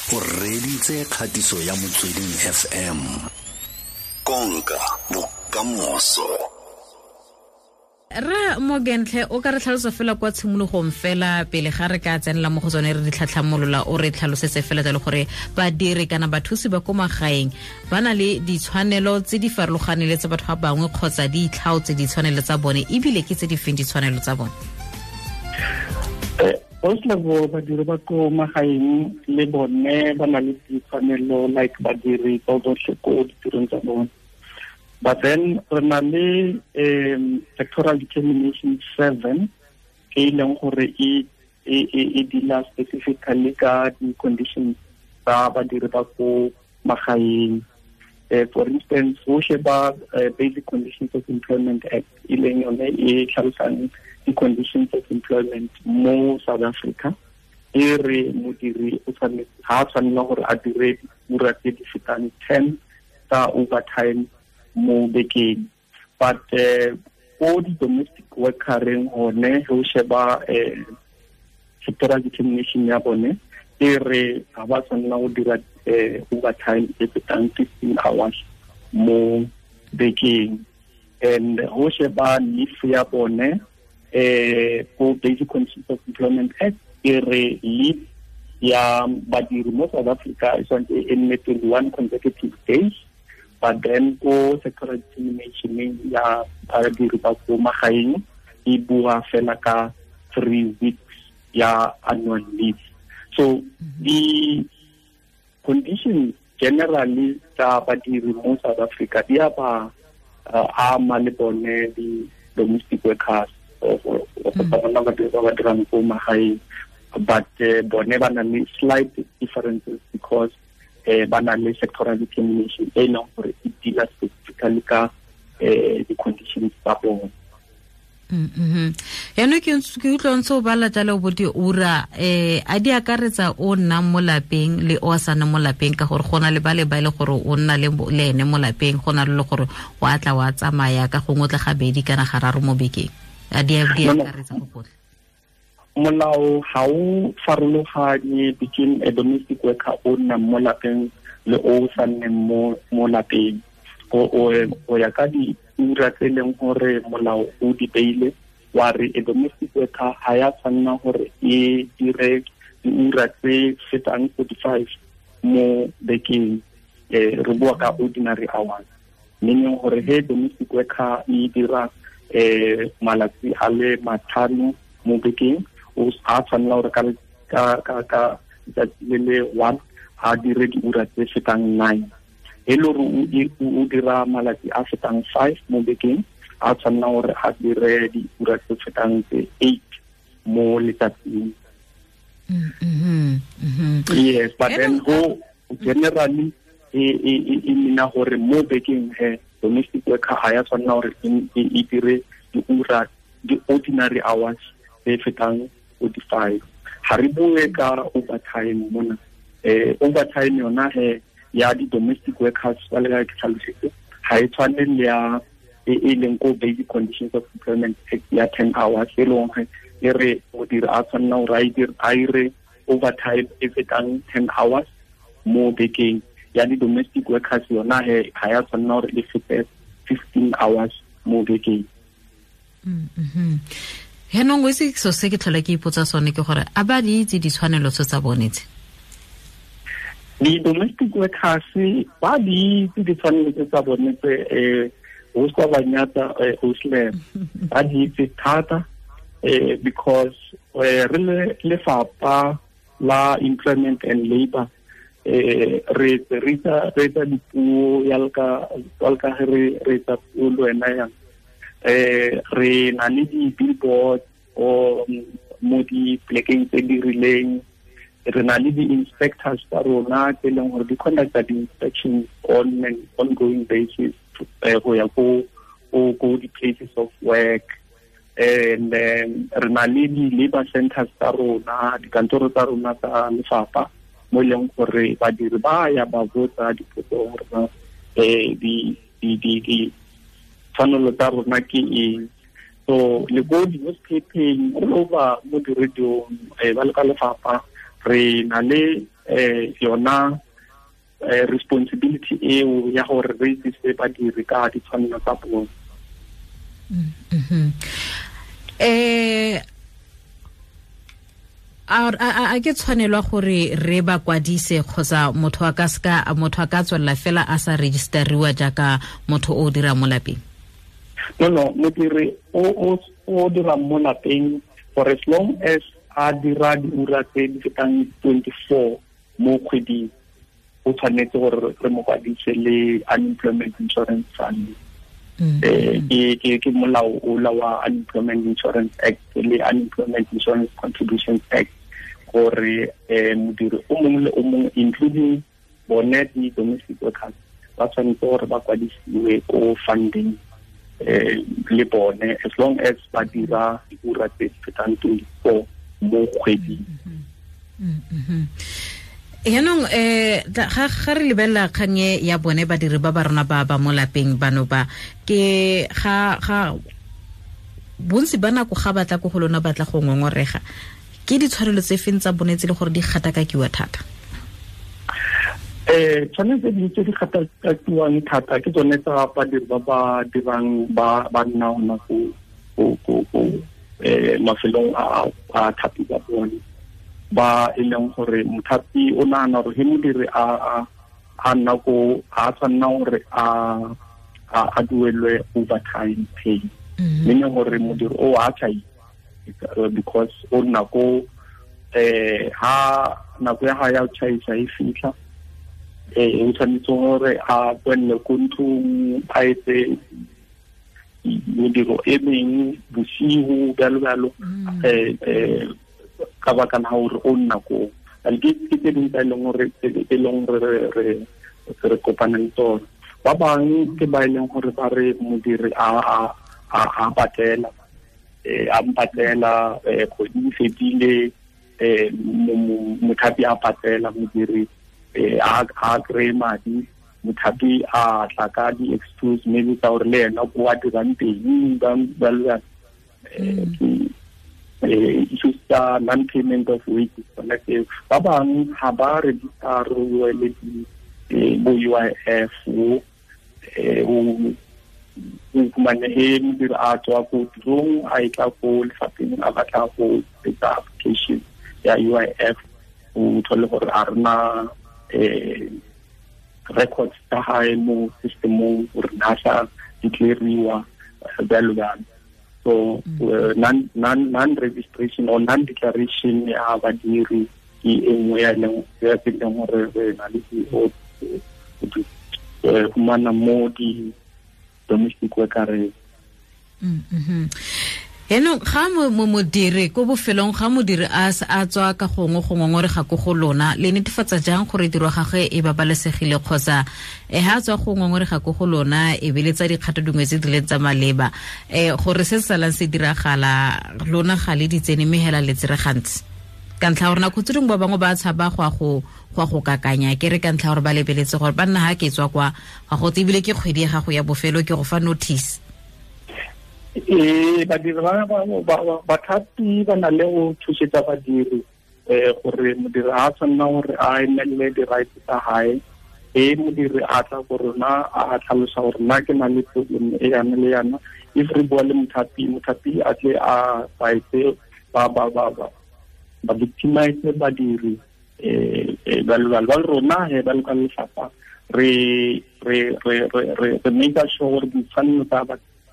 O reditse kgatiso ya Motsweding FM. Konka bokamoso. Ra Morgantlhe, o ka re tlhalosa fela kwa tshimologong fela pele ga re ka tsenela mo go tsone re di tlhatlhamolola, o re tlhalosetse fela jalo gore badiri kana bathusi ba ko magaeng ba na le ditshwanelo tse di farologaneng le tsa batho ba bangwe kgotsa di itlhaotse ditshwanelo tsa bone, ebile ke tse di feng ditshwanelo tsa bone? First of all, badiri ba ko magaeng le bone ba na le ditshwanelo like badiri ba botlhe ko ditirong tsa bone. But then re na le sectoral determination 7 e leng gore e deala specifically ka di-conditions tsa badiri ba ko magaeng. For instance, go sheba Basic Conditions of Employment Act e leng yone e tlhalosang di-conditions of employment mo South Africa, e re modiri o tshwanetse ha a tshwanela gore a dire diura tse di fetang 10 tsa overtime mo bekeng. But ko di-domestic workereng gone, ge o sheba sectoral determination ya bone, e re ga ba tshwanela go dira overtime e fetang 15 hours mo bekeng. And go sheba leave ya bone, ko Basic Conditions of Employment Act, e re leave ya badiri mo South Africa e tshwanetse e nne 21 consecutive days. But then ko sectoral determination ya badiri ba ko magaeng e bua fela ka 3 weeks ya annual leave. So the conditions generally tsa badiri mo South Africa di a ba ama le bone di domestic workers or bona badiri ba ba dirang ko magaeng, but bone ba na le slight differences because ba na le sectoral determination e leng gore e deala specifically ka di-conditions tsa bone. Yaanong ke utlwa ntse o bala jalo bo diura, a di akaretsa o nnang mo lapeng le o sa nnang mo lapeng, ka gore go na le ba le ba e le gore o nna le ene mo lapeng, go na le gore o a tla wa tsamaya ka gongwe o tla gabedi kana gararo mo bekeng. A di akaretsa go gotlhe? Molao ga o farologanye between a domestic worker o nnang mo lapeng le o sa nneng mo lapeng. O ya ka diura tse e leng gore molao o di beile, wa re a domestic worker ga ya tshwanela gore e dire diura tse fetang 45 mo bekeng. Re bua ka ordinary hours, meaning gore he domestic worker e dira malatsi a le 5 mo bekeng, o a tshwanela gore ka letsatsi le le 1 a dire diura tse fetang 9. E le gore o dira malatsi a fetang 5 mo bekeng, a tshwanela gore a dire diura tse fetang tse 8 mo letsatsing. Yes, but then go generally e nna gore mo bekeng he domestic worker ga ya tshwanela gore e dire diura di-ordinary hours tse fetang 45. Ga re bue ka overtime mona. Overtime yona he ya di-domestic workers ba le ka ke tlhalositse, ga e tshwane le ya e leng ko Basic Conditions of Employment Act ya 10 hours, e leng gore e re modiri a tshwanela gore a dire overtime e fetang 10 hours mo bekeng. Ya di-domestic workers yona he ga ya tshwanela gore e fete 15 hours mo bekeng. Yaanong o itse selo se ke tlhola ke ipotsa sone ke gore a ba di itse ditshwanelo tse tsa bone tse? Di-domestic workers ba di itse ditshwanelo tse tsa bone tse, o se ba nyatsa, o se ba di itse thata, because re le lefapha la employment and labor, re etsa dipuo ya ka re etsa puo le wena yang. Re na le di-billboard o mo di-plekeng tse di rileng, re na le di-inspectors tsa rona tse e leng gore di conducta di-inspections on an ongoing basis go ya ko di-places of work. And then re na le di-labor centers tsa rona, dikantoro tsa rona tsa lefapha mo e leng gore badiri ba ya ba botsa dipotso gore di tshwanelo tsa rona ke eng. So le ko di-newspapering, all over mo di-radiong, ba le ka lefapha re na le yona responsibility eo ya gore re itsise badiri ka ditshwanelo tsa bone. A ke tshwanelwa gore re ba kwadise kgotsa motho a ka ska motho a ka tswella fela a sa registeriwa jaaka motho o dira mo lapeng? No, modiri o dira mo lapeng for as long as a dira diura tse di fetang 24 mo kgweding, o tshwanetse gore re mo kwadise le Unemployment Insurance Fund. Ke molao o la wa Unemployment Insurance Act le Unemployment Insurance Contributions Act, gore modiri o mongwe le o mongwe including bone di-domestic workers ba tshwanetse gore ba kwadisiwe ko funding le bone as long as ba dira diura tse di fetang 24 mo kgweding. Yaanong ga re lebelela kganye ya bone badiri ba ba rona ba ba mo lapeng bano ba ke ga bontsi ba nako ga batla ko go lona batla go ngongorega, ke ditshwanelo tse feng tsa bone tse le gore di gatakakiwa thata? Tshwanelo tse di gatakakiwang thata ke tsone tsa badiri ba ba dirang ba nna gona ko mafelong a thapi ba bone, ba e leng gore mothapi o nagana gore he modiri a nna ko a tshwanna gore a duelwe overtime pay, meaning gore modiri o a tshai because o nna ko ha nako ya hae ya ho tjhaisa e fitlha, o tshwanetse gore a boelle ko ntlong a etse mediro e meng bosigo bjalo bjalo, ka baka la gore o nna ko. And ke tse dingwe tsa e leng gore re kopana le tsone. Ba bangwe ke ba e leng gore ba re modiri a patela, a mpatela kgwedi e fetile, mothapi a patela modiri, a kry-e madi, mothapi a tla ka di-excuse maybe tsa gore le ena ko a dirang teng bjalo bjalo. Issues tsa non-payment of wages tsona tseo. Ba bangwe ga ba register-iwe le bo UIF, o fumane he modiri a tswa ko tirong a e tla ko lefapheng a batla go etsa application ya UIF, o thole gore a rena records tsa hae mo systemong gore na sa declare-iwa bjalo bjalo. So non-registration or non-declaration ya badiri ke e nngwe ya leng ya tse leng gore re na le go fumana mo di-domestic worker. Yaanong ga modiri ko bofelong ga modiri a tswa ka gongwe go ngongorega ko go lona, le netefatsa jang gore tiro gagwe e babalesegile kgotsa ha tswa go ngongorega ko go lona e be le tsa dikgato dingwe tse di leng tsa maleba, gore se salang se diragala lona ga le di tsene mme hela le tsere gantsi? Ka ntlha gore nako tse dingwe ba bangwe ba tshaba go go kakanya, ke re ka ntlha gore ba lebeletse gore ba nna ha ke tswa kwa ga go ebile ke kgwedi ya gago ya bofelo ke go fa notice. Badiri bathapi ba na le go thusetsa badiri gore modiri a tshwanna gore a emelele di-rights tsa hae. E modiri a tla go rona a tlhalosa gore nna ke na le problem e yana le yana, if re bua le mothapi, mothapi a tle a fight ba ba victimize badiri bjalo bjalo. Ba rona he ba le ka lefapha re make sure gore ditshwanelo tsa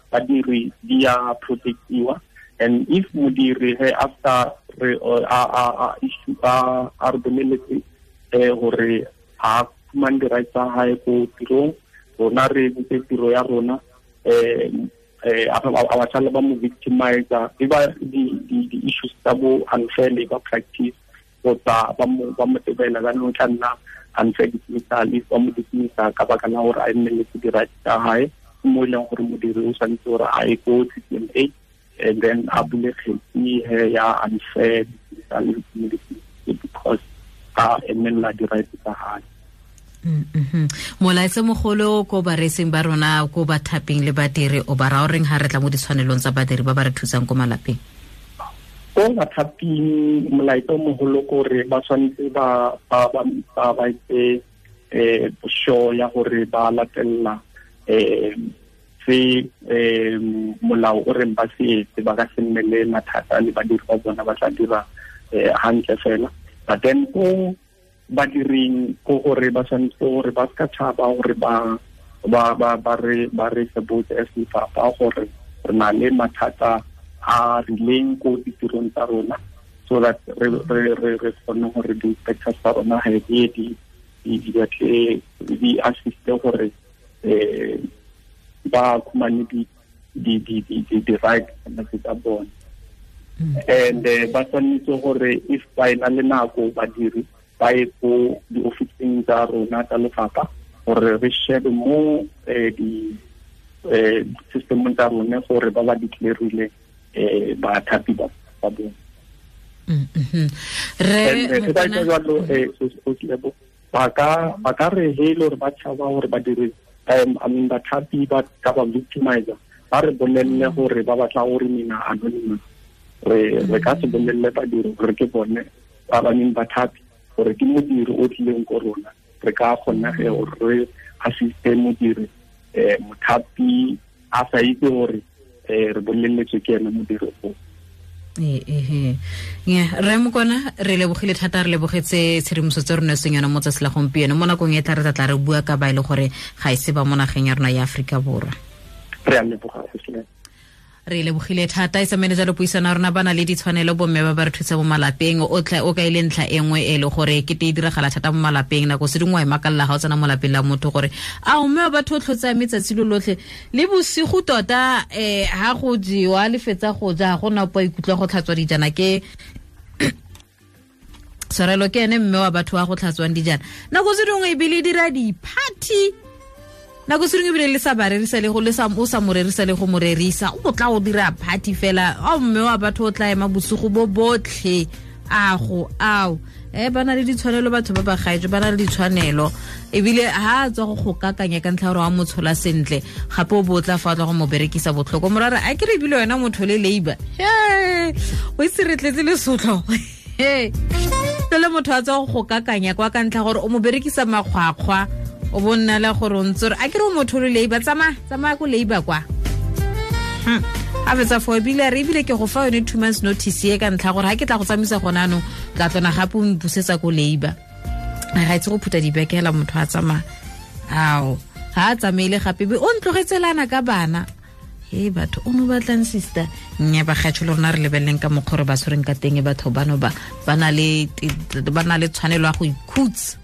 badiri di a protectiwa, and if modiri he after re a issue a re boleletse gore a fumane di-rights tsa hae ko tirong, rona re entse tiro ya rona, a ba sala ba mo victimizer, e ba di-issues tsa bo unfair labor practice kgotsa ba mo tebela jaanong tla nna unfair dismissal if ba mo dismissa ka baka la gore a emeletse di-rights tsa hae, mo e leng gore modiri o tshwanetse gore a ye ko CCMA and then a bule kgetsi ya unfair dismissal because a emelela di-rights tsa hae. Molaetsa mogolo ko bareetsing ba rona ko bathaping le badiri o ba ra o reng ha re tla mo ditshwanelong tsa badiri ba ba re thusang ko malapeng? Ko bathaping molaetsa o mogolo kore ba tshwanetse ba etse sure ya gore ba latella se molao o reng ba se etse, ba ka se nne le mathata le badiri ba bona, ba tla dira hantle fela. But then ko badiring ko gore ba tshwanetse gore ba ska tshaba gore ba re se botse as lefapha gore re na le mathata a rileng ko ditirong tsa rona, so that re kgone gore di-inspectors tsa rona ga di batle di assiste gore ba khumane di right tsa bone. And ba tshwanetse gore if ba ena le nako badiri ba ye ko di-officing tsa rona tsa lefapha gore re shebe mo di-systemong tsa rone gore ba ba declarile bathapi ba bone. Ba ka re he le gore ba tshaba gore badiri bathapi ba ka ba victimizer, ba re bolelle gore ba batla gore mina anonymous, re ka se bolelle badiri gore ke bone ba ba neng bathapi, gore ke modiri o tlileng ko rona, re ka kgona ge gore re assiste modiri mothapi a sa itse gore re boleletswe ke ene modiri o. Re Mokwana, re lebogile thata, re lebogetse tshedimoso tse re neetsweng yona mo tsatsi la gompieno. Mo nakong e tla re tla re bua ka ba e le gore ga e se ba mo nageng ya rona ya Aforika Borwa. Re a leboga. Re lebogile thata. E samene jalo puisano ya rona ba na le ditshwanelo bomme ba ba re thusa mo malapeng. O tla o ka ile ntlha e nngwe e le gore ke te e diragala thata mo malapeng, nako se dingwe wa e makalla ga o tsena mo lapeng la motho gore a o mme wa batho o tlhotse metsatsi lo lotlhe le bosigo tota, ha go jewa le fetsa go ja ga gona po ikutlwa go tlhatswa dijana, ke tshwarelo ke ene mme wa batho wa go tlhatswang dijana. Nako se dingwe ebile e dira di-party, nako se dingwe ebile le sa ba rerisa le go le sa o sa mo rerisa le go mo rerisa, o tla o dira party fela. A mme wa batho o tla ema bosigo bo botlhe a go ao. Ba na le ditshwanelo batho ba ba gaetsho, ba na le ditshwanelo ebile ha a tswa go kakanya ka ntlha gore wa mo tshola sentle, gape o bo tla fa tla go mo berekisa botlhoko. Morare a ke re ebile wena motho le labor, o itse re tletse lesotlo le motho a tswa go kakanya kwa ka ntlha gore o mo berekisa makgwakgwa, o bo nna le gore o ntse re a ke re o motho le labor, tsamaya ko labor kwa. A fetsa fo ebile re ebile ke go fa yone 2 months notice e ka ntlha gore ha ke tla go tsamaisa gona anong tla tlona gape o mpusetsa ko labor. Ga itse go phutha dibekela motho a tsamaya, ao ha a tsamaile gape be o ntlogetselana ka bana. He batho o no batlang sister nya ba gatsho le rona re lebeleng ka mokgwa re ba tshwereng ka teng batho bano ba na le tshwanelo ya go ikhutsa.